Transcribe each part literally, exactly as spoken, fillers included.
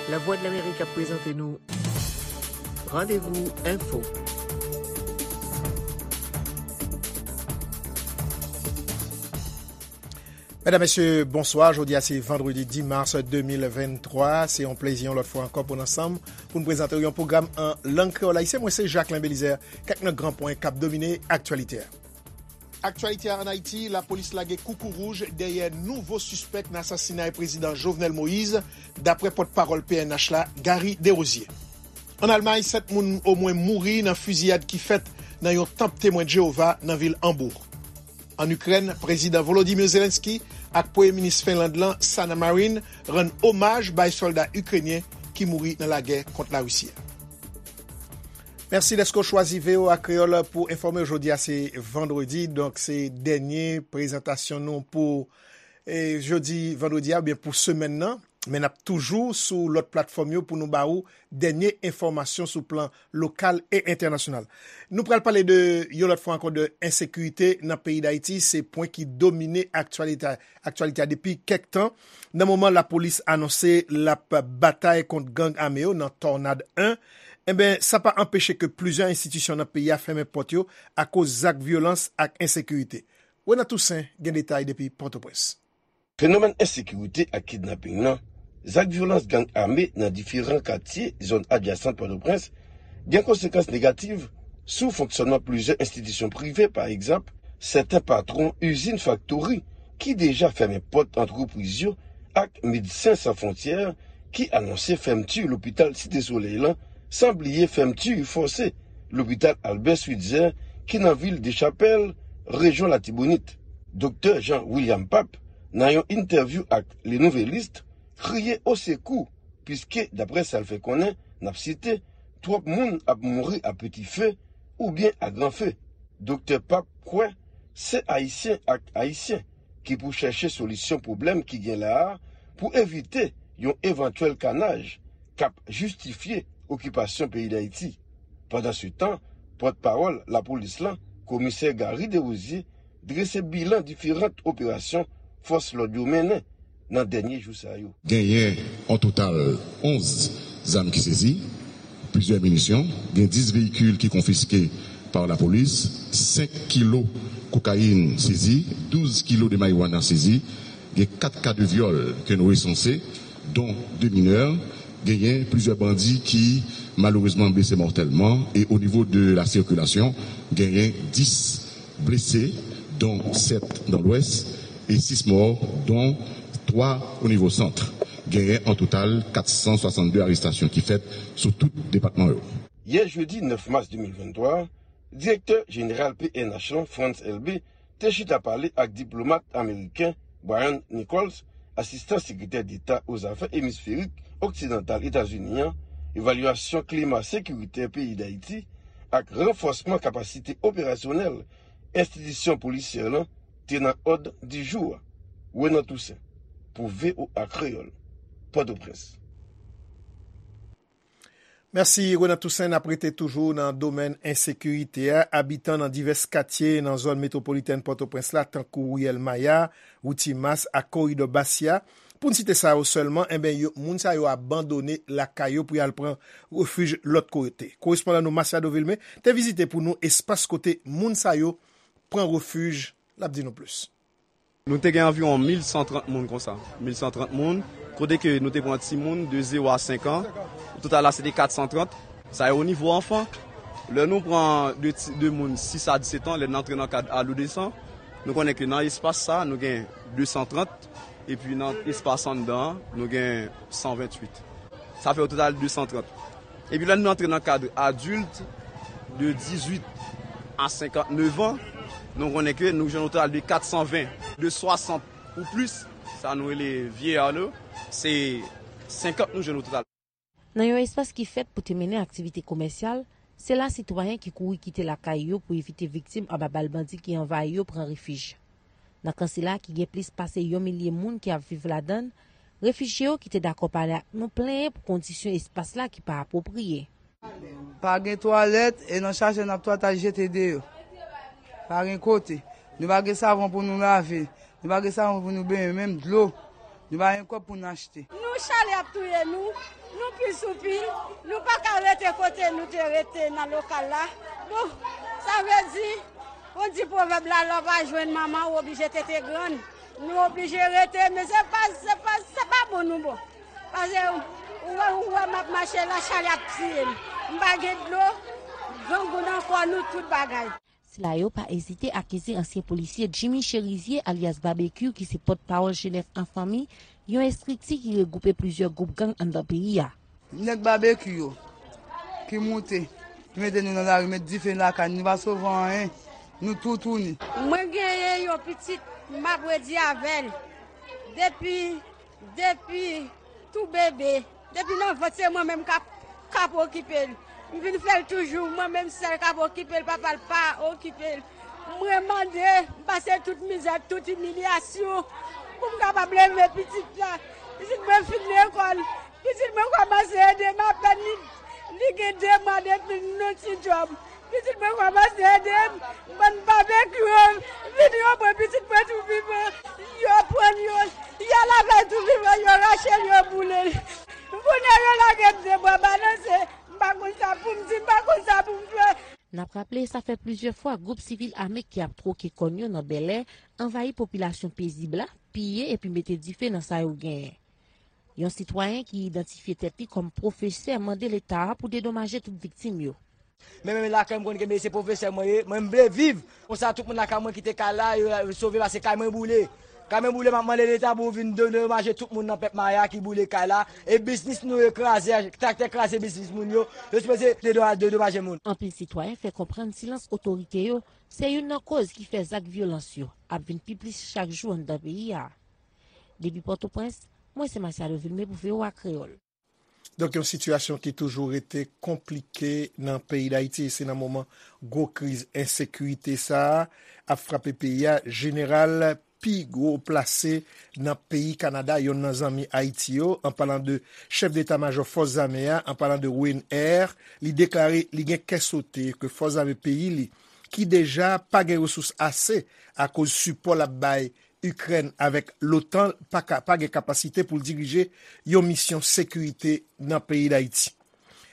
Lavwadlamerik ap prezante nou Randevou Enfo. Medam, mesye, bonswa. Jodi a se vandredi dis mas de mil venntwa. Se yon plezi yon lòt fwa ankò pou n ansanm pou n prezante w yon pwogram an lang kreyòl ayisyen. Mwen se Jacquelin Belizaire. Kèk nan gran pwen k ap domine aktyalite a. Aktyalite a ann Ayiti, lapolis lage koukouwouj dèyè nouvo sispèk nan asasinay prezidan Jovenel Moïse, daprè pòtpawòl P N H la, Gary Desrosiers. Ann Almay, sèt moun omwen mouri nan fiziyad ki fèt nan yon tanp Temwen Jewova nan vil Hambourg. Ann Ikrèn, prezidan Volodymyr Zelensky ak premye minis Fenland lan, Sanna Marin, rann omaj bay sòlda ikrenyen ki mouri nan lagè kont Larisi a. Mèsi dèske w chwazi V O A Kreyòl pou enfòme w. Jodi a se vandredi, donk se dènye prezantasyon nou pou, e, jodi vandredi a, oubyen pou semèn nan. Men n ap toujou sou lòt platfòm yo pou nou ba ou dènye enfòmasyon sou plan lokal e entènasyonal. Nou pral pale de, yon lòt fwa ankò, de ensekirite nan peyi Dayiti. Se pwen ki domine aktyalite, aktyalite a depi kèk tan. Nan moman lapolis anonse l ap batay kont gang ame yo nan Tònad en, enben, sa pa anpeche ke plizyè enstitisyon nan peyi a fèmen pòt yo akoz zak vyolans ak ensekirite. Renan Toussaint gen detay depi Pòtoprens. Fenomèn ensekirite ak kidnaping nan, zak vyolans gang ame nan diferan katye zòn adjasan Pòtoprens gen konsekans negatif sou fonksyònman plizyè enstitisyon prive, pa egzanp, sèten patwon izin faktori ki deja fèmen pòt antrepriz yo ak Medsen San Fwontyè ki anonse fèmti lopital Site Solèy lan, san bliye fèmti fòse lopital Albert Switzer ki nan vil Dechapèl, rejyon Latibonit. Doktè Jean William Pape, nan yon entèvyou ak Le Nouvelliste, kriye osekou, piske, daprè sa l fè konnen, n ap site, twòp moun ap mouri a peti fe oubyen a gran fe. Doktè Pape kwè se Ayisyen ak Ayisyen ki pou chèche solisyon pwoblèm ki gen la a pou evite yon evantyèl kanaj k ap jistifye okipasyon peyi Dayiti. Pandansetan, pòtpawòl lapolis lan, komisè Gary Desrosiers, drese bilan diferan operasyon fòs lòd yo mennen nan dènye jou sa yo. Genyen an total onz zam ki sezi, plizyè minisyon, gen dis veyikil ki konfiske pa lapolis, senk kilo kokayin sezi, douz kilo de marijuana sezi, gen kat ka de vyòl ke nou resanse, dont de minè, genyen plizyè bandi ki malerezman blese mòtèlman, e o nivo de la sikilasyon, genyen dis blese, dont sèt nan Lwès, e sis mò, dont twa o nivo sant. Genyen an total kat san swasann de arestasyon ki fèt sou tout depatman yo. Yè jedi nèf mas de mil venntwa, direktè jeneral P N H lan, Frantz Elbé, te chita pale ak diplomat ameriken Brian Nichols, asistan sekretè deta o zafè emisferik oksidantal Etazini an, evalyasyon klima sekiritè peyi Dayiti ak ranfòsman kapasite operasyonèl enstitisyon polisyè lan te nan òd di jou a. Renan Toussaint, pou V O A Kreyòl, Pòtoprens. Mèsi, Renan Toussaint. N ap rete toujou nan domèn ensekirite a. Abitan nan divès katye nan zòn metwopolitèn Pòtoprens la, tankou Riyèl Maya, Wout Timas ak Koridò Basya, pou n site sa yo sèlman, enben, yo, moun sa yo abandone lakay yo pou y al pran refij lòt kote. Korespondan nou, Masiado Vilmé, te vizite pou nou espas kote moun sa yo pran refij. L ap di nou plis. Nou te gen anviwon mil san trant moun konsa. Mil san trant moun, kote ke nou te pran timoun de zewo a senk an. O total la, se te kat san trant. Sa e o nivo anfan. Lè nou pran de ti, de moun sis a disèt an, lè n antre nan kad adolesan, nou konnen ke nan espas sa, nou gen de san trant, epi nan espas anndan an, nou gen san venntuit. Sa fè o total de san trant. Epi lè nou antre nan kad adilt de dizuit a senkantnèf an, nou konnen ke nou jwenn o total de kat san ven. De swasant ou plis, sa nou rele vieillard nou, se senkant nou jwenn o total. Nan yon espas ki fèt pou te mennen aktivite komèsyal, se la sitwayen ki kouri kite lakay yo pou evite viktim anba bal bandi ki anvayi yo pran refij. Nan kan sila ki gen plis pase yon milye moun ki ap viv ladan l, refijye yo ki te dakò pale ak nou plenyen pou kondisyon espas la ki pa apwopriye. Pa gen twalèt, e nan chajè n ap twal ta jete deyò. Pa gen kote. Nou pa gen savon pou nou lave. Nou pa gen savon pou nou benyen, menm dlo. Nou pa gen kòb pou n achte. Chalè ap touye nou, nou pi sou pil, nou pa ka rete kote nou te rete nan lokal la. Bon, sa vle di, on di pwovèb la, lè w pa jwenn manman, ou oblije tete grann. Nou oblije rete, men se pa, se pa, se pa bon nou bon. Paske ou wè, ou wè m ap mache la, chalè ap tiye m. M pa gen dlo, grangou nan kò nou, tout bagay. Sila yo pa ezite akize ansyen polisye Jimmy Cherizier, alyas Babekyou, ki se pòtpawòl Jenèf an Fanmi, yon estrikti ki regwoupe plizyè gwoup gang anndan peyi a. Nèg Babekyou yo ki moute, ki mete nou nan lari, met dife lakay nou, nou pa sove anyen, nou toutouni. Mwen genyen yon pitit, m ap redi avè l. Depi, depi tou bebe, depi nan vant se mwen menm k ap, k ap okipe l. M vin fè l toujou, mwen menm sèl k ap okipe l, papa l pa okipe l. Mwen mande, m pase tout mizè, tout imilyasyon pou m kapab leve pitit la. Pitit mwen fin lekòl, pitit mwen kòmanse ede m apèn li, li gen de mwa depi l nan ti djòb. Pitit mwen kòmanse ede m, bann Babekyou yo vin yo pran pitit mwen tou vivan, yo pran l, yo, y al avè l tou vivan, yo rache l, yo boule l. Kounye a yo lage m de bwa balanse, m pa konn sa pou m di, m pa konn sa pou m fè. N ap raple, sa fè plizyè fwa gwoup sivil ame ki ap twoke kòn yo nan Bèlè anvayi popilasyon pezib la, piye epi mete dife nan sa yo genyen. Yon sitwayen ki idantifye tèt li kòm pwofesè mande Leta a pou dedomaje tout viktim yo. Men, men lakay m konn kenbe, se pwofesè mwen ye, mwen m vle viv. Konsa tout moun lakay mwen kite kay la, yo, yo sove paske kay mwen boule. Kay mwen boule, m ap mande Leta pou vin de-, dedomaje tout moun nan pèp Maya ki boule kay la. E biznis nou yo kraze, traktè kraze biznis moun yo. Yo sipoze dedo-, dedomaje moun. Anpil sitwayen fè konprann silans otorite yo se youn nan koz ki fè zak vyolans yo ap vin pi plis chak jou anndan peyi a. Depi Pòtoprens, mwen se Masiado Vilmé pou V O A Kreyòl. Donk, yon sitiyasyon ki toujou rete konplike nan peyi Dayiti, e se nan moman gwo kriz ensekirite sa a ap frape peyi a. Jeneral pi gwo plase nan peyi Kanada, youn nan zanmi Ayiti yo, an palan de chèf deta majò fòs zame a, an palan de Wayne Eyre, li deklare li gen kè sote ke fòs zame peyi li, ki deja pa gen resous ase akoz sipò l ap bay Ikrèn avèk l'OTAN pa ka, pa gen kapasite pou l dirije yon misyon sekirite nan peyi Dayiti.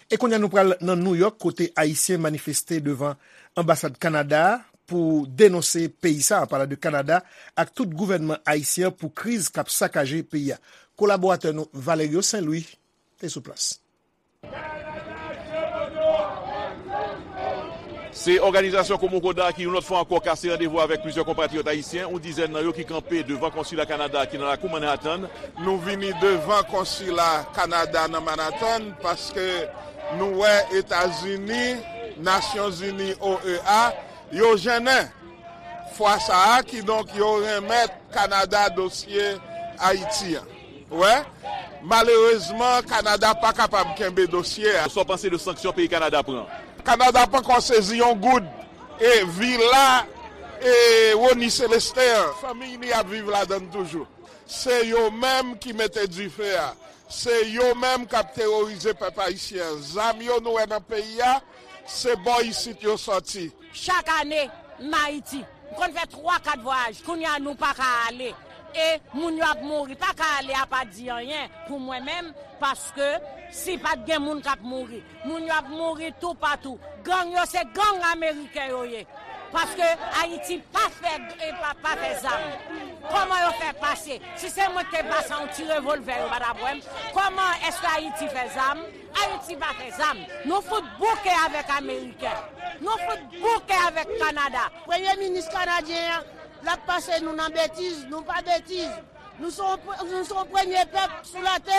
E kounye a nou pral nan Nouyòk, kote Ayisyen manifeste devan anbasad Kanada a pou denonse peyi sa a, an palan de Kanada, ak tout gouvènman ayisyen an pou kriz k ap sakaje peyi a. Kolaboratè nou Valerio Saint Louis te sou plas. Se òganizasyon Komokoda ki yon lòt fwa ankò kase randevou avèk plizyè konpatriyòt ayisyen, yon dizèn nan yo ki kanpe devan konsila Kanada ki nan lakou Manhattan. Nou vini devan konsila Kanada nan Manhattan paske nou wè Etazini, Nasyonzini, O E A, yo jennen fwa sa a, kidonk yo renmèt Kanada dosye Ayiti an. Wè, malerezman, Kanada pa kapab kenbe dosye a. Sa w panse de sanksyon peyi Kanada pran? Kanada pankò sezi yon goud. E vila, e Rony Célestin an, fanmiy li ap viv ladan l toujou. Se yo menm ki mete dife a. Se yo menm k ap teworize pèp ayisyen an. Zam yo nou wè nan peyi a, se bò isit yo sòti. Chak ane, m Ayiti. M konn fè twa, kat vwayaj. Kounye a, nou pa ka ale. E moun yo ap mouri. Pa ka ale a pa di anyen pou mwen menm, paske si pa t gen moun k ap mouri, moun yo ap mouri toupatou. Gang yo, se gang ameriken yo ye. Paske Ayiti pa fè, e pa, pa fè zam. Kòman yo fè pase? Si se mwen ki te pase yon ti revòlvè, yo pa t ap wè m. Kòman èske Ayiti fè zam? Ayiti pa fè zam. Nou fout bouke avèk Ameriken. Nou fout bouke avèk Kanada. Premye minis kanadyen an, l ap pase nou nan betiz, nou pa betiz. Nou se yon pre-, nou se yon premye pèp sou latè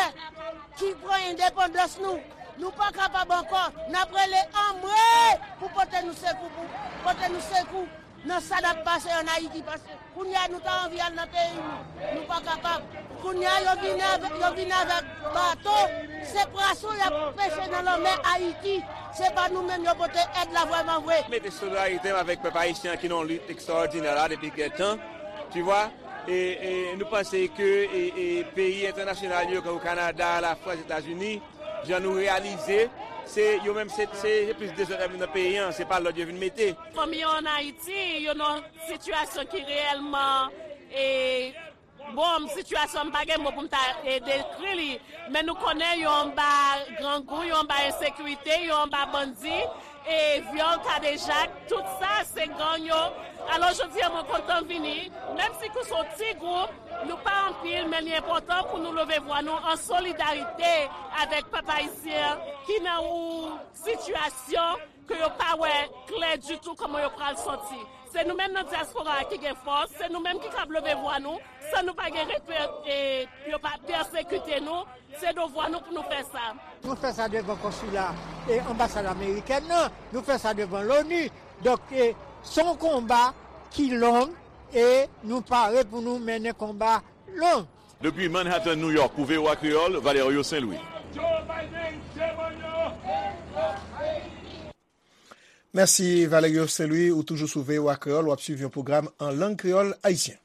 ki pran endepandans nou. Nou pa kapab ankò. N ap rele anmwe pou pote nou sekou, pou pote nou sekou nan sa n ap pase ann Ayiti, paske kounye a nou ta anvi al nan peyi nou, nou pa kapab. Kounye a yo vin avèk, yo vin avèk bato, se pwason y ap peche nan lanmè Ayiti. Se pa nou menm yo pote èd la vrèman vre. Mete solidarite m avèk pèp ayisyen an ki nan yon lit ekstraòdinè la depi kèk tan, tu vois. E, e nou panse ke, e, e peyi entènasyonal yo, tankou Kanada, Lafrans, Etazini, jan nou reyalize, se yo menm, se, se, se plis dezòd ap vin nan peyi an, se pa lòd yo vin mete. Fanmi yo ann Ayiti, yo nan sitiyasyon ki reyèlman, e, Bon, sitiyasyon an, m pa gen mo pou m ta, e, dekri li, men nou konnen yo anba grangou, yo anba ensekirite, yo anba bandi, e vyòl, kadejak, tout sa, se gang yo. Alò, jodi a, mwen kontan vini, menm si kou se yon ti gwoup, nou pa anpil, men li enpòtan pou nou leve vwa nou an solidarite avèk pèp ayisyen ki nan yon sitiyasyon ke yo pa wè klè ditou kòman yo pral sòti. Se nou menm nan dyaspora a ki gen fòs, se nou menm ki kab leve vwa nou, san nou pa gen repè, e, yo pa pèsekite nou, se devwa nou pou nou fè sa. Nou fè sa devan konsila e anbasad amerikèn nan, nou fè sa devan loni. Donk, e, se yon konba ki long e nou pare pou nou mennen konba long. Depi Manhattan, New York, pou V O A Kreyòl, Valerio Saint-Louis. Mèsi, Valerio Saint-Louis. Ou toujou sou V O A Kreyòl, w ap swiv yon pwogram an lang kreyòl ayisyen.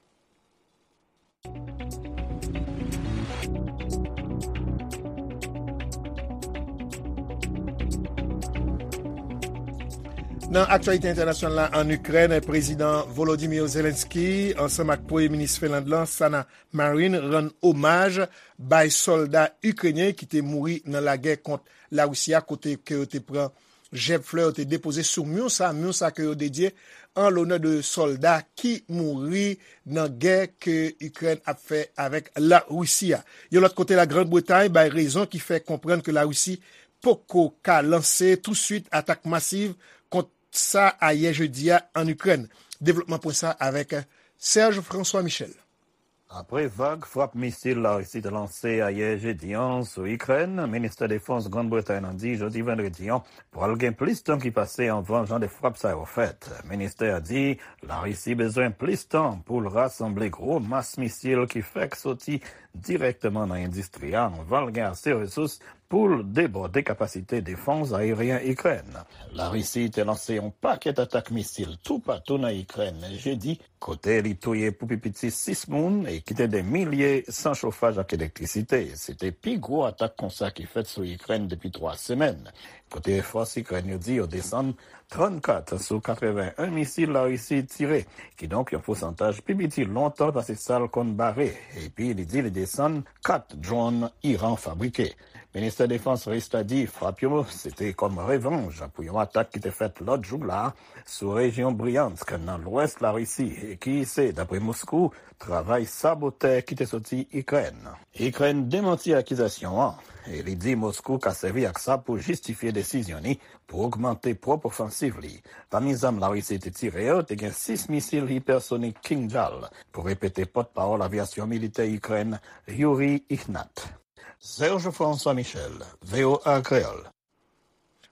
Nan aktyalite entènasyonal la, ann Ikrèn, Prezidan Volodymyr Zelensky ansanm ak Premye Minis Finland lan, Sanna Marin, rann omaj bay sòlda ikrenyen ki te mouri nan lagè kont Larisi a, kote ke yo te pran jèb flè, yo te depoze sou myon sa, myon sa ke yo dedye an lonè de sòlda ki mouri nan gè ke Ikrèn ap fè avèk Larisi a. Yon lòt kote, Lagrann Bretay bay rezon ki fè konprann ke Larisi poko ka lanse touswit atak masiv kont sa ayè jedi a ann Ikrèn. Devlopman pwen sa avèk Serge François Michel. Apre vag frap misil Larisi te lanse ayè jedi an sou Ikrèn, Ministè Defans Grann Bretay lan di jodi vandredi an pral gen plis tan ki pase anvan jan de frap sa yo fèt. Ministè a di Larisi bezwen plis tan pou l rasanble gwo mas misil ki fèk soti dirèkteman nan endistri a anvan l gen ase resous pou l debòde kapasite defans ayeryen Ikrèn. Larisi te lanse yon pakèt atak misil toupatou nan Ikrèn jedi, kote li touye pou pi piti sis moun e kite de milye san chofaj ak elektrisite. Se te pi gwo atak konsa ki fèt sou Ikrèn depi twa semèn, kote fòs Ikrèn yo di yo desann trannkat sou katreven en misil Larisi tire, kidonk yon pousantaj pi piti lontan pase sa l konn bare, epi li di li desann kat dwòn Iran fabrike. Ministè Defans ris la di frap yo se te kòm revanj pou yon atak ki te fèt lòt jou la sou rejyon Bryansk nan lwès Larisi, e ki se, dapre Moskou, travay sabotè ki te soti Ikrèn. Ikrèn demanti akizasyon an, e li di Moskou ka sèvi ak sa pou jistifye desizyon li pou ogmante pwòp ofansiv li. Pami zam Larisi te tire yo, te gen sis misil ipèsonik Kinjal, pou repete pòtpawòl avyasyon militè Ikrèn, Yuri Ihnat. Serge François Michel, V O A Kreyòl.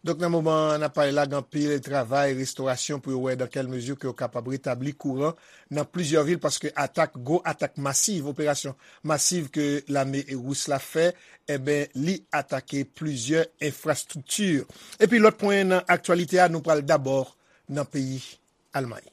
Donk, nan moman n ap pale la, gen anpil travay restorasyon pou yo wè dans quelle mesure ke yo kapab retabli kouran nan plizyè vil, paske atak, gwo atak masiv, operasyon masiv ke lame ris la fè, enben, li atake plizyè enfrastrikti. Epi lòt pwen nan aktyalite a, nou pral dabò nan peyi Almay.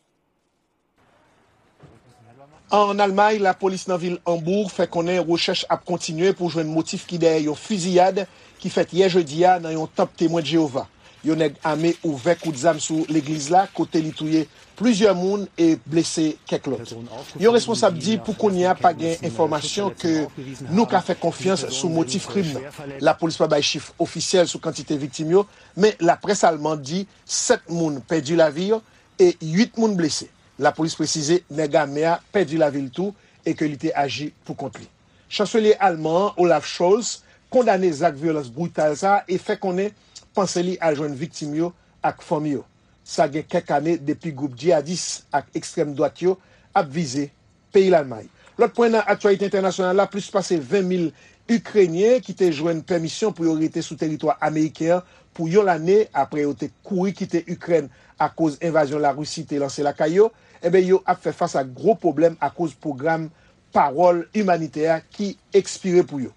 Ann Almay, lapolis nan vil Hambourg fè konnen rechèch ap kontinye pou jwenn motif ki dèyè yon fiziyad ki fèt yè jedi a nan yon tanp Temwen de Jewova. Yon nèg ame ouvè kout zam sou legliz la, kote li touye plizyè moun e blese kèk lòt. Yon responsab di pou kounye a pa gen enfòmasyon ke nou ka fè konfyans sou motif krim nan. Lapolis pa bay chif ofisyèl sou kantite viktim yo, men laprès alman di sèt moun pèdi lavi yo e uit moun blese. Lapolis presize nèg ame a pèdi lavi l tou e ke li te aji pou kont li. Chanselye alman an, Olaf Scholz, kondane zak vyolans brital sa a e fè konnen panse li al jwenn viktim yo ak fanmi yo. Sa gen kèk ane depi gwoup djihadis ak ekstrèm dwat yo ap vize peyi Lalmay. Lòt pwen nan aktyalite entènasyonal la, plis pase ven mil Ikrenyen ki te jwenn pèmisyon pou yo rete sou teritwa ameriken an pou yon lane apre yo te kouri kite Ikrèn akoz envazyon Larisi te lanse lakay yo, enben, yo ap fè fas ak gwo pwoblèm akoz pwogram pawòl imanitè a ki ekspire pou yo.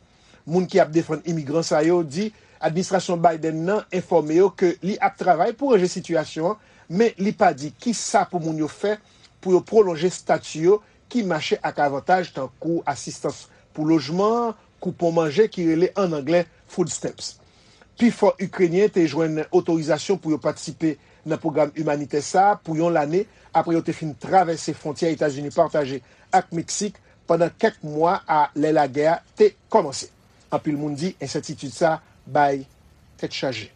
Moun ki ap defann imigran sa yo di administrasyon Biden nan enfòme yo ke li ap travay pou ranje sitiyasyon an, men li pa di kisa pou moun yo fè pou yo pwolonje estati yo ki mache ak avantaj tankou asistans pou lojman, koupon manje ki rele ann anglè food stamps. Pifò Ikrenyen te jwenn otorizasyon pou yo patisipe nan pwogram imanitè sa a pou yon lane apre yo te fin travèse fwontyè Etazini pataje ak Meksik pandan kèk mwa a lè lagè a te kòmanse. Anpil moun di ensètitid sa bay tèt chaje.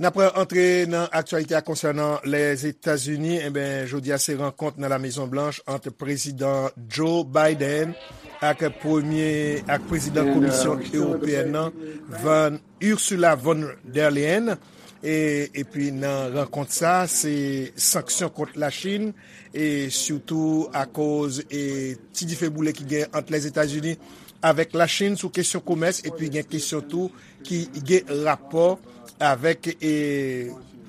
N ap antre nan aktyalite a konsènan Lèzetazini. Enben, jodi a se rankont nan La Mezon Blanch ant Prezidan Joe Biden ak premye, ak prezidan Komisyon Ewopeyèn nan, Van, Ursula von der Leyen. E, epi nan rankont sa, se sanksyon kont Lachin, e sitou akoz, e, ti dife boule ki gen ant Lèzetazini avèk Lachin sou kesyon komès, epi gen kesyon tou ki gen rapò avèk, e,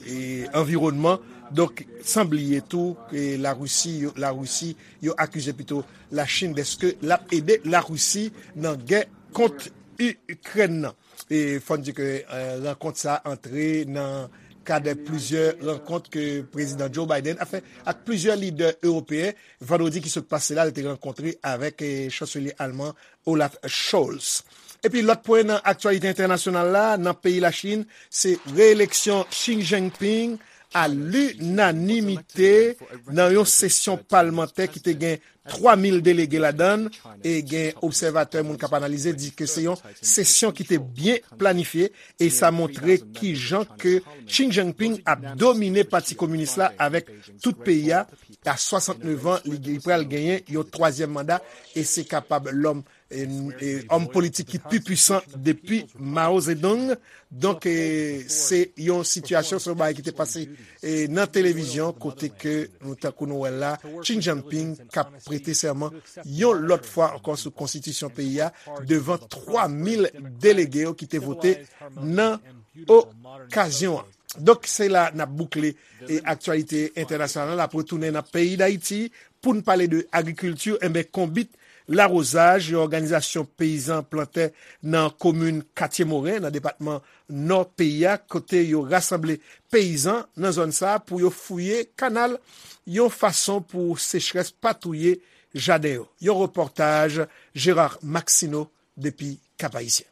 e, anviwònman. Donk, san bliye tou ke Larisi, yo, Larisi, yo akize pito Lachin dèske l ap ede Larisi nan gè kont Ikrèn nan. E fò n di ke, e, rankont sa antre nan kad plizyè rankont ke Prezidan Joe Biden ap fè ak plizyè lidè ewopeyen. Vandredi ki sot pase la, li te rankontre avèk, e, chanselye alman Olaf Scholz. Epi lòt pwen nan aktyalite entènasyonal la, nan peyi Lachin, se reeleksyon Xi Jinping a linanimite nan yon sesyon palmantè ki te gen twa mil delege ladan l, e gen obsèvatè, moun k ap analize, di ke se yon sesyon ki te byen planifye, e sa montre kijan ke Xi Jinping ap domine Pati Kominis la avèk tout peyi a. A swasantnèf an, li, li pral genyen yon twazyèm manda, e se kapab lòm, e, e, òm politik ki pi pwisan depi Mao Zedong. Donk, e, se yon sitiyasyon, se yon bagay ki te pase, e, nan televizyon, kote ke nou, tankou nou wè l la, Xi Jinping k ap prete sèman yon lòt fwa ankò sou konstitisyon peyi a devan twa mil delege yo ki te vote nan okazyon an. Donk, se la n ap boukle, e, aktyalite entènasyonal la. N ap retounen nan peyi Dayiti pou n pale de agrikilti. Enben, Konbit Lawozaj, yon òganizasyon peyizan plantè nan komin Katye Moren, nan depatman Nò peyi a, kote yo rasanble peyizan nan zòn sa a pou yo fouye kanal, yon fason pou sechrès pa touye jaden yo. Yon repòtaj Gérard Maxineau depi Cap-Haïtien.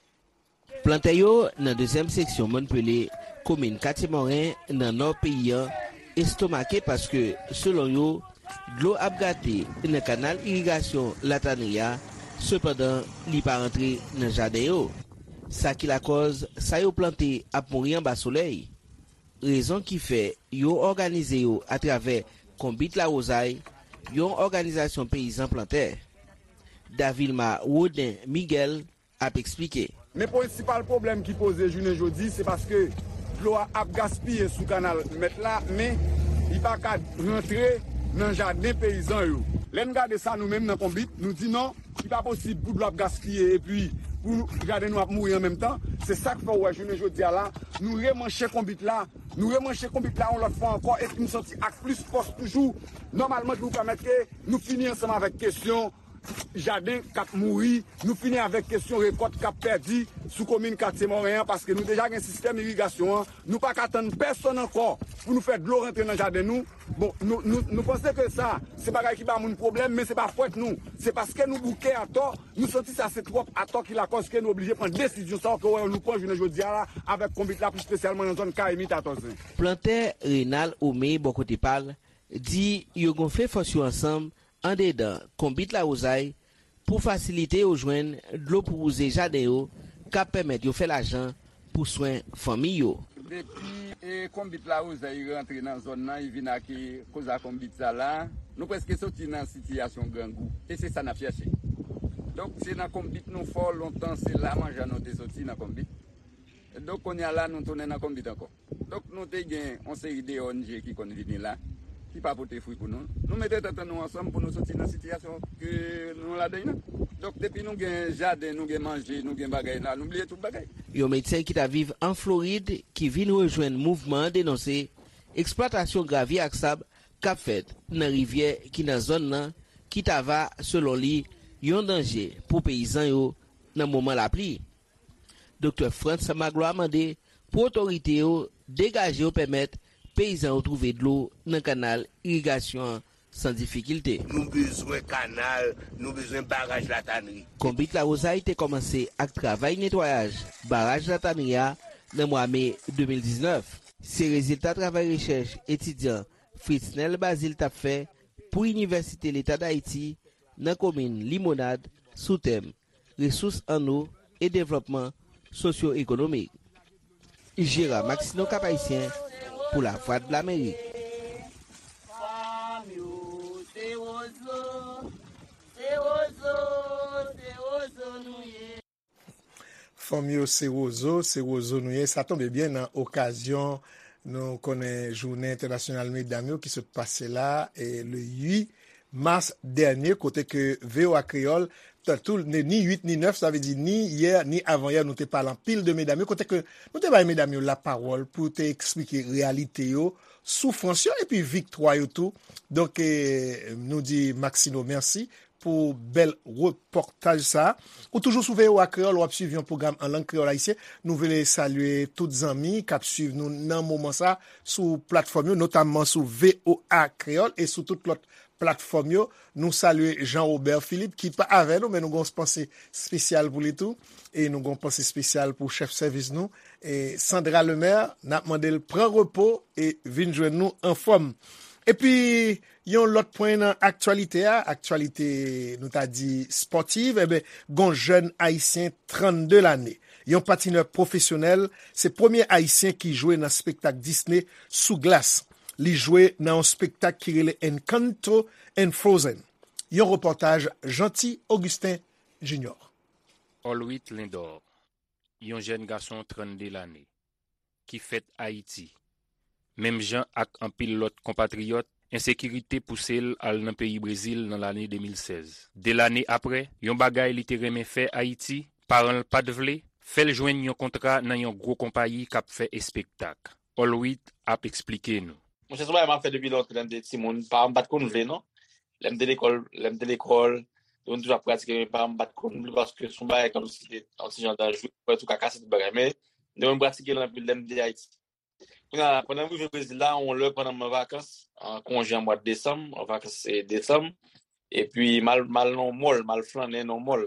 Plantè yo nan dezyèm seksyon Mòn Pele, komin Katye Moren, nan nò peyi an, estomake paske, selon yo, dlo ap gate nan kanal irigasyon Latanri a, sepandan, li pa rantre nan jaden yo. Sa ki lakòz sa yo plante ap mouri anba solèy. Rezon ki fè yo òganize yo atravè Konbit Lawozay, yon òganizasyon peyizan plantè. Davilma Woden Miguel ap eksplike. Men prensipal pwoblèm ki poze jounen jodi, se paske dlo a ap gaspiye sou kanal mèt la, men li pa ka rantre nan jaden peyizan yo. Lè n gade sa, nou menm nan Konbit, nou di non, li pa posib pou dlo ap gaspiye epi pou jaden nou ap mouri an menm tan. Se sa k fè w wè jounen jodi a la, nou remanche Konbit la, nou remanche Konbit la yon lòt fwa ankò, epi nou soti ak plis fòs toujou. Nòmalman, ki pou pèmèt ke nou fini ansanm avèk kesyon jaden k ap mouri, nou fini avèk kesyon rekòt k ap pèdi sou komin Katye Moren an, paske nou deja gen sistèm irigasyon an. Nou pa ka tann pèsonn ankò pou nou fè dlo rantre nan jaden nou. Bon, nou, nou, nou panse ke sa, se bagay ki ba moun pwoblèm, men se pa fòt nou. Se paske nou bouke atò, nou santi sa se twòp atò ki lakòz ke nou oblije pran desizyon sa yo ke w wè nou pran jounen jodi a la avèk Konbit la, pli espesyalman nan zòn Kayimit a Tòzen. Plantè Renald Ome, bò kote pa l, di yo gonfle fòs yo ansanm andedan Konbit Lawozay pou fasilite yo jwenn dlo pou wouze jaden yo, k ap pèmèt yo fè lajan pou swen fanmi yo. Depi, e, Konbit Lawozay rantre nan zòn nan, li vin ak, e, koz a Konbit sa la, nou prèske soti nan sitiyasyon grangou. E se sa n ap chèche. Donk, se nan Konbit nou fò, lontan se la manjan nou te soti nan Konbit. Donk, kounye a la, nou tounen nan Konbit ankò. Donk, nou te gen yon seri de O N G ki konn vini la, ki pa pote fwi pou nou. Nou mete tèt nou ansanm pou nou soti nan sitiyasyon ke nou ladan nan. Donk, depi nou gen jaden, nou gen manje, nou gen bagay la, nou bliye tout bagay. Yon medsen ki t ap viv an Florid, ki vin rejwenn mouvman an, denonse eksplwatasyon gravye ak sab k ap fèt nan rivyè ki nan zòn nan, ki ta va, selon li, yon danje pou peyizan yo nan moman lapli. Doktè Frantz Magloire mande pou otorite yo degaje yo pèmèt peyizan yo twouve dlo nan kanal irigasyon an san difikilte. Nou bezwen kanal, nou bezwen baraj Latanri. Konbit Lawozay te kòmanse ak travay netwayaj baraj Latanri a nan mwa me de mil diznèf. Se rezilta travay rechèch etidyan Fritznel Bazile t ap fè pou Inivèsite Leta d Ayiti nan komin Limonad sou tèm Resous an nou e devlòpman sosyo-ekonomik. Jera Maxineau, Cap-Haïtien, pou Lavwadlamerik. Fanm yo, se wozo, se wozo nou ye. Sa tonbe byen nan okazyon nou konnen jounen entènasyonal medam yo ki sot pase la, e le uit mas dènye, kote ke V O A Kreyòl, tantou ni uit ni nèf, sa vle di ni yè ni avanyè, nou te pale anpil de medam yo, kote ke nou te bay medam yo lapawòl pou te eksplike reyalite yo, soufrans yo epi viktwa yo tou. Donk, eh, nou di Maxino mèsi pou bèl repòtaj sa. Ou toujou sou V O A Kreyòl, w ap swiv yon pwogram an lang kreyòl ayisyen. Nou vle salye tout zanmi k ap swiv nou nan moman sa sou platfòm yo, notamman sou V O A Kreyòl e sou tout lòt platfòm yo. Nou salye Jean Robert Philippe ki pa avè nou, men nou gen yon panse espesyal pou li tou. E nou gen yon panse espesyal pou chèf sèvis nou, e Sandra Lemaire. N ap mande l pran repo e vin jwenn nou anfòm. Epi, yon lòt pwen nan aktyalite a, aktyalite nou ta di espòtiv, enben, gon jèn ayisyen trannde lane, yon patinè pwofesyonèl, se premye ayisyen ki jwe nan spektak Disney sou glas. Li jwe nan yon spektak ki rele Encanto and Frozen. Yon repòtaj Jeanty Augustin Junior. Olwit Lindor, yon jèn gason trannde lane, ki fèt Ayiti, menm jan ak anpil lòt konpatriyòt, ensekirite pouse l al nan peyi Brezil nan lane de mil sèz. De lane apre, yon bagay li te renmen fè Ayiti, paran l pa t vle, fè l jwenn yon kontra nan yon gwo konpayi k ap fè espektak. Olwit ap eksplike nou. Monchè, se yon bagay m ap fè depi lontan, lè m te timoun. Paran m pa t konn vle, non. Lè m te lekòl, lè m te lekòl, yo toujou ap pratike, men paran m pa t konn vle paske se yon bagay kòmsi ki te yon ti jan danjre, ou wè tou ka kase tout bagay. Men, mwen m pratike l anpil lè m te Ayiti. Kounye a, pandan m rive Brezil la, yon lè pandan m an vakans, an konje an mwa desanm, an vakans, e, desanm, epi m al, m al nan yon mòl, m al flannen nan yon mòl.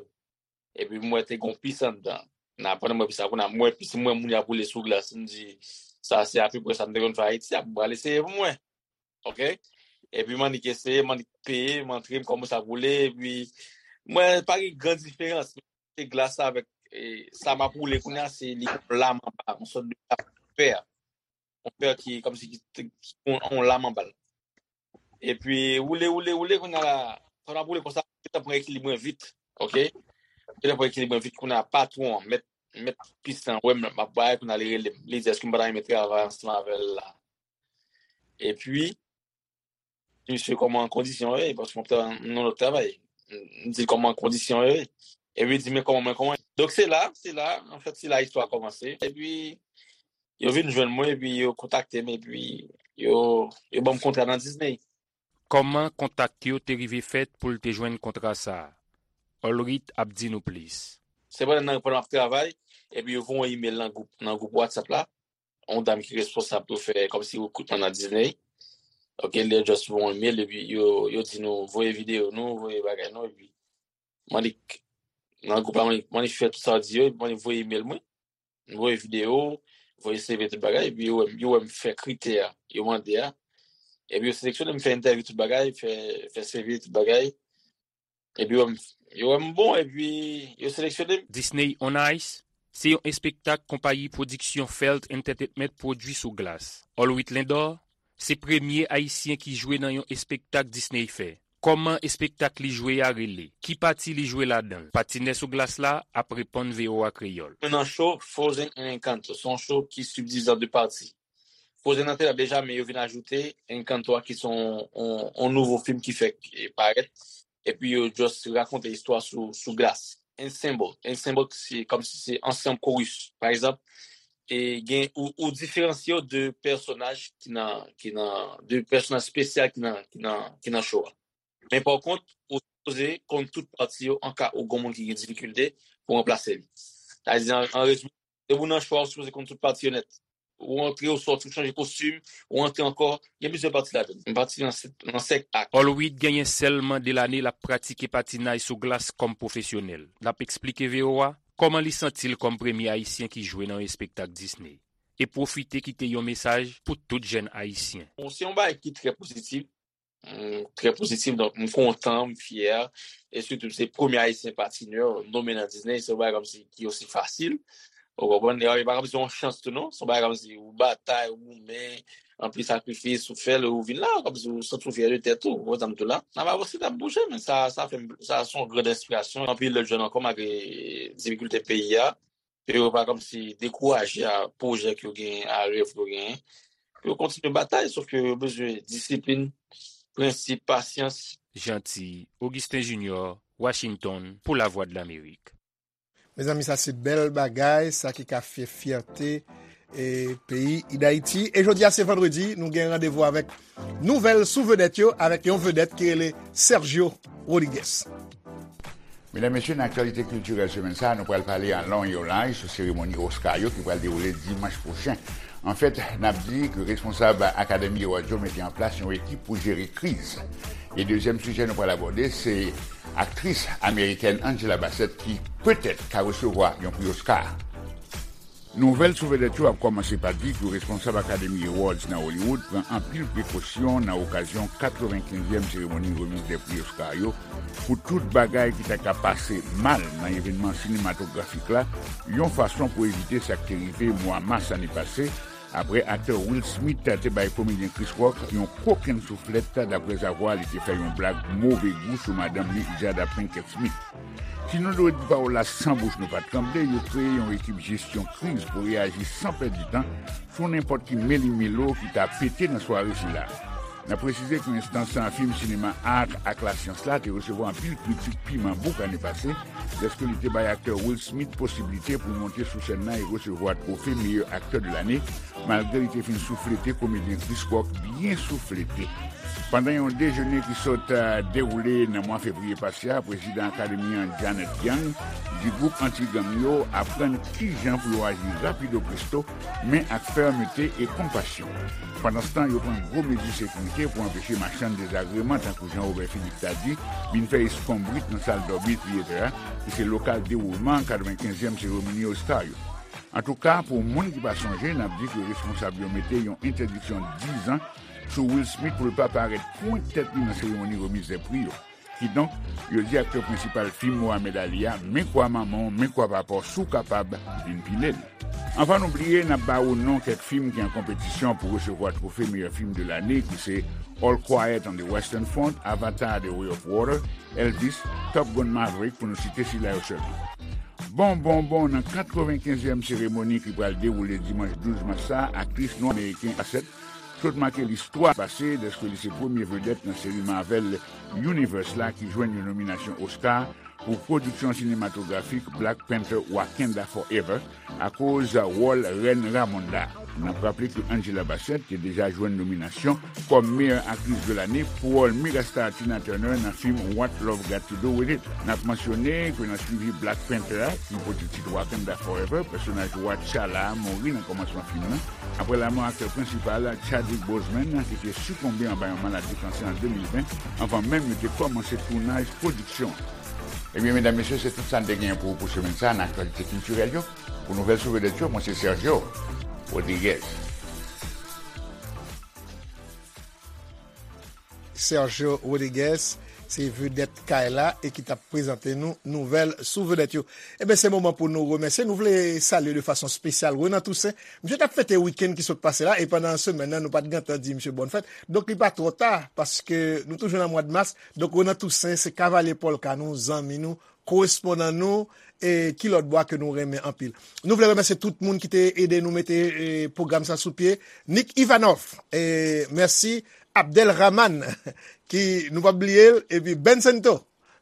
Epi m wè te gen yon pis anndan. Nan, pandan m wè pis la, kounye a, m wè pis, m wè moun y ap woule sou glas. M di, sa se apeprè sa m te konn fè Ayiti, a, m pral eseye pou m wè. Oke? Epi m annik eseye, m annik peye, m antre, m kòmanse ap woule, epi m wè pa gen gran diferans. Se glas la avèk, e, sa m ap woule kounye a, se li yon lam anba, yon sòt de lam fè. Yon fè ki, kòmsi ki, ki, ki yon, yon lam anba l. Epi, woule, woule, woule, kounye a la, pandan m ap woule konsa, m gentan pran ekilib mwen vit, oke? M gentan pran ekilib mwen vit, kounye a, patwon an, mèt, mèt pis lan, wè m ap bay, kounye a, li rele m. Li di, èske m pa ta renmen travay ansanm avè l la? Epi, misye kòman kondisyon yo ye, paske m ap travay nan lòt travay. M di l kòman kondisyon yo ye. Epi li di, men kòman mwen, kòman. Donk se la, se la, anfèt, se la istwa a kòmanse. Epi, yo vin jwenn mwen, epi yo kontakte m, epi yo, yo ban m kontra nan Disney. Kòman kontak yo te rive fèt pou l te jwenn kontra sa a? Olwit ap di nou plis. Se pandan nan, pandan m ap travay, epi yo voye yon imèl nan gwoup, nan gwoup WhatsApp la. Yon dam ki responsab pou fè kòmsi rekritman nan Disney. Oke, li just voye yon imèl, epi yo, yo di nou, voye videyo nou, voye bagay nou, epi m annik, nan gwoup la, m annik, m annik fè tout sa yo di yo, epi m annik voye imèl mwen. M voye videyo, voye C V, tout bagay, epi yo wè m, yo wè m fè kritè a, yo mande a. Epi yo seleksyone m, fè entèvyou, tout bagay, fè, fè C V, tout bagay. Epi yo wè m, yo wè m bon, epi yo seleksyone m. Disney on Ice, se yon espektak konpayi pwodiksyon Felt Entertainment pwodui sou glas. Olwit Lindor, se premye Ayisyen ki jwe nan yon espektak Disney fè. Kòman espektak li jwe a rele? Ki pati li jwe ladan l? Patinè sou glas la ap reponn V O A Kreyòl. Mwen nan cho Frozen and Encanto. Se yon cho ki sibdivize an de pati. Frozen nan te la deja, men yo vin ajoute Encanto a ki se yon, yon, yon nouvo fim ki fèk, e, parèt. Epi yo just rakonte istwa sou, sou glas. Ensemble. Ensemble, se kòmsi se ansanm, chorus. Pa egzanp, e gen, ou, ou diferansye yo de pèsonaj ki nan, ki nan, de pèsonaj espesyal ki nan, ki nan, ki nan cho a. Men pa kont, ou sipoze konn tout pati yo an ka ou gon moun ki gen difikilte pou ranplase li. Sa vle di, an, an rezime, depi w nan cho a, ou sipoze konn tout pati yo nèt. Ou antre, ou sòti, ou chanje kostim, ou antre ankò. Gen plizyè pati ladan l. M patine nan sèt, nan sèt ak. Olwit genyen sèlman de lane l ap pratike patinaj sou glas kòm pwofesyonèl. L ap eksplike V O A kòman li santi l kòm premye Ayisyen ki jwe nan yon espektak Disney. E pwofite kite yon mesaj pou tout jèn Ayisyen. Bon, se yon bagay ki trè pozitif. M trè pozitif, donk m kontan, m fyè. E sitou, se premye Ayisyen patinè nonmen nan Disney, se yon bagay kòmsi ki osi fasil. Ou konprann? E pa kòmsi yon chans tou, non. Se yon bagay kòmsi ou batay, ou goumen, anpil sakrifis, ou fè l, ou vin la, kòmsi ou santi w fyè de tèt ou. Ou konprann sa m di w la? N ap avanse, n ap bouje, men sa, sa fè m, sa se yon gran enspirasyon. Anpil lòt jèn ankò, malgre difikilte peyi a, pou yo pa kòmsi dekouraje a pwojè ke yo genyen, a rèv ke yo genyen. Pou yo kontinye batay, sòf ke yo bezwen disiplin, prensip, pasyans. Jeanty Augustin Junior, Washington, pou Lavwadlamerik. Mezanmi, sa se bèl bagay, sa ki ka fè fyète e peyi Dayiti. E jodi a se vandredi, nou gen randevou avèk nouvèl sou vedèt yo, avèk yon vedèt ki rele Sergio Rodriguez. Medam, mesye, nan aktyalite kiltirèl semèn sa a, nou pral pale an long e an laj sou seremoni Oscar yo ki pral dewoule dimanch pwochen. Anfèt, n ap di ke responsab Academy Awards yo mete an plas yon ekip pou jere kriz. E dezyèm sijè nou pral abòde, se aktris amerikèn Angela Bassett ki petèt ka resevwa yon pri Oscar. Nouvèl sou vedèt yo ap kòmanse pa di ke responsab Academy Awards nan Hollywood pran anpil prekosyon nan okazyon katrevenkenzyèm seremoni remiz dè pri Oscar yo pou tout bagay ki ta ka pase mal nan evènman sinematografik la, yon fason pou evite sa k te rive mwa mas ane pase, apre aktè Will Smith te bay komedyen Chris Rock yon kokenn souflèt, daprèzavwa li te fè yon blag move gou sou madanm li, Jada Pinkett Smith. Si nou dwe di pawòl la san bouch nou pa t tranble, yo kreye yon ekip jesyon kriz pou reyaji san pèdi tan sou nenpòt ki meli melo ki ta pete nan sware sila. N ap presize ke enstans fim, sinema, art ak lasyans la te resevwa anpil kritik piman bouk ane pase, lèske li te bay aktè Will Smith posiblite pou monte sou sèn nan e resevwa twofe meyè aktè de lane, malgre li te fin souflete komedyen Chris Rock byen souflete. Pandan yon dejene ki sot, eh, dewoule nan mwa fevriye pase a, prezidan Akademi an, Janet Yang, di gwoup anti-gang yo aprann kijan pou yo aji rapido presto, men ak fèmete e konpasyon. Pandanstan, yo pran gwo mezi sekirite pou anpeche machann dezagreman, tankou Jean Robert Philippe ta di, vin fè eskonbrit nan sal Dolby Theatre a, ki se lokal dewoulman katrevenkenzyèm seremoni Oscar yo. Antouka, pou moun ki pa sonje, n ap di ke responsab yo mete yon entèdiksyon dizan sou Will Smith pou l pa parèt pwent tèt li nan seremoni remiz dè pri yo. Kidonk, yo di aktè prensipal fim Mohamed Ali a, men kwa manman w, men kwa papa w, si w kapab, vin pile l. Anvan nou bliye, n ap ba ou non kèk fim ki an konpetisyon pou resevwa twofe meyè fim de lane, ki se All Quiet on the Western Front, Avatar: The Way of Water, Elvis, Top Gun: Maverick, pou nou site sila yo sèlman. Bon, bon, bon, nan katrevenkenzyèm seremoni ki pral dewoule dimanch douz mas sa a, aktris nwa ameriken Bassett sot make listwa pase dèske li se premye vedèt nan seri Marvel Universe la ki jwenn yon nominasyon Oscar pou pwodiksyon sinematografik Black Panther: Wakanda Forever akoz wòl rèn Ramonda. N ap raple ke Angela Bassett te deja jwenn nominasyon kòm meyè aktris de lane pou wòl megastar Tina Turner nan fim What Love Got to Do With It. N ap mansyone ke nan swivi Black Panther a, ki pote tit Wakanda Forever, pèsonaj wa T'Challa a mouri nan kòmansman fim nan, apre lanmò aktè prensipal Chadwick Boseman, ki te sikonbe anba yon maladi kansè an de mil ven, anvan menm yo te kòmanse tounaj pwodiksyon an. Ebyen, medam, mesye, se tout sa n te genyen pou ou pou semèn sa a nan aktyalite kiltirèl yo. Pou nouvèl sou vedèt yo, mwen se Sergio Rodriguez. Sergio Rodriguez, se vedèt kay la e ki t ap prezante nou nouvèl sou vedèt yo. Ebyen, se moman pou nou remèsye. Nou vle salye de fason espesyal Renan Toussaint. Misye t ap fete wikenn ki sot pase la, e pandan semèn nan, nou pa t gentan di misye bòn fèt. Donk, li pa twò ta, paske nou toujou nan mwa de mas. Donk, Renan Toussaint, se kavalye pòlka nou, zanmi nou, korespondan nou, e ki lòt bò ke nou renmen anpil. Nou vle remèsye tout moun ki te ede nou mete, e, pwogram sa sou pye. Nick Ivanov, e, mèsi. Abdel Rahman, ki nou p ap bliye l, epi Ben Sento,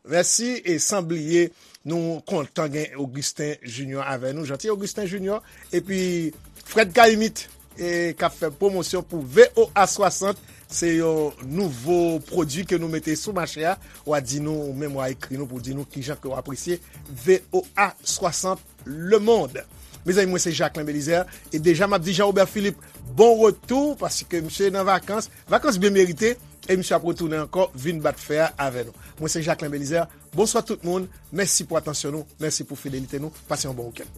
mèsi, e san bliye, nou kontan gen Augustin Junior avè nou, Jeanty Augustin Junior, epi Fred Caïmite, e k ap fè pwomosyon pou V O A swasant, se yon nouvo pwodui ke nou mete sou mache a. W a di nou, ou menm w a ekri nou pou di nou kijan ke w apresye V O A swasant Le Monde. Mezanmi, mwen se Jacquelin Belizaire, e deja m ap di Jean Robert Philippe, bon retou, paske misye nan vakans, vakans byen merite, e misye ap retounen ankò, vin bat fè a avè nou. Mwen se Jacquelin Belizaire, bonswa tout moun, mèsi pou atansyon nou, mèsi pou fidelite nou, pase yon bon wikenn.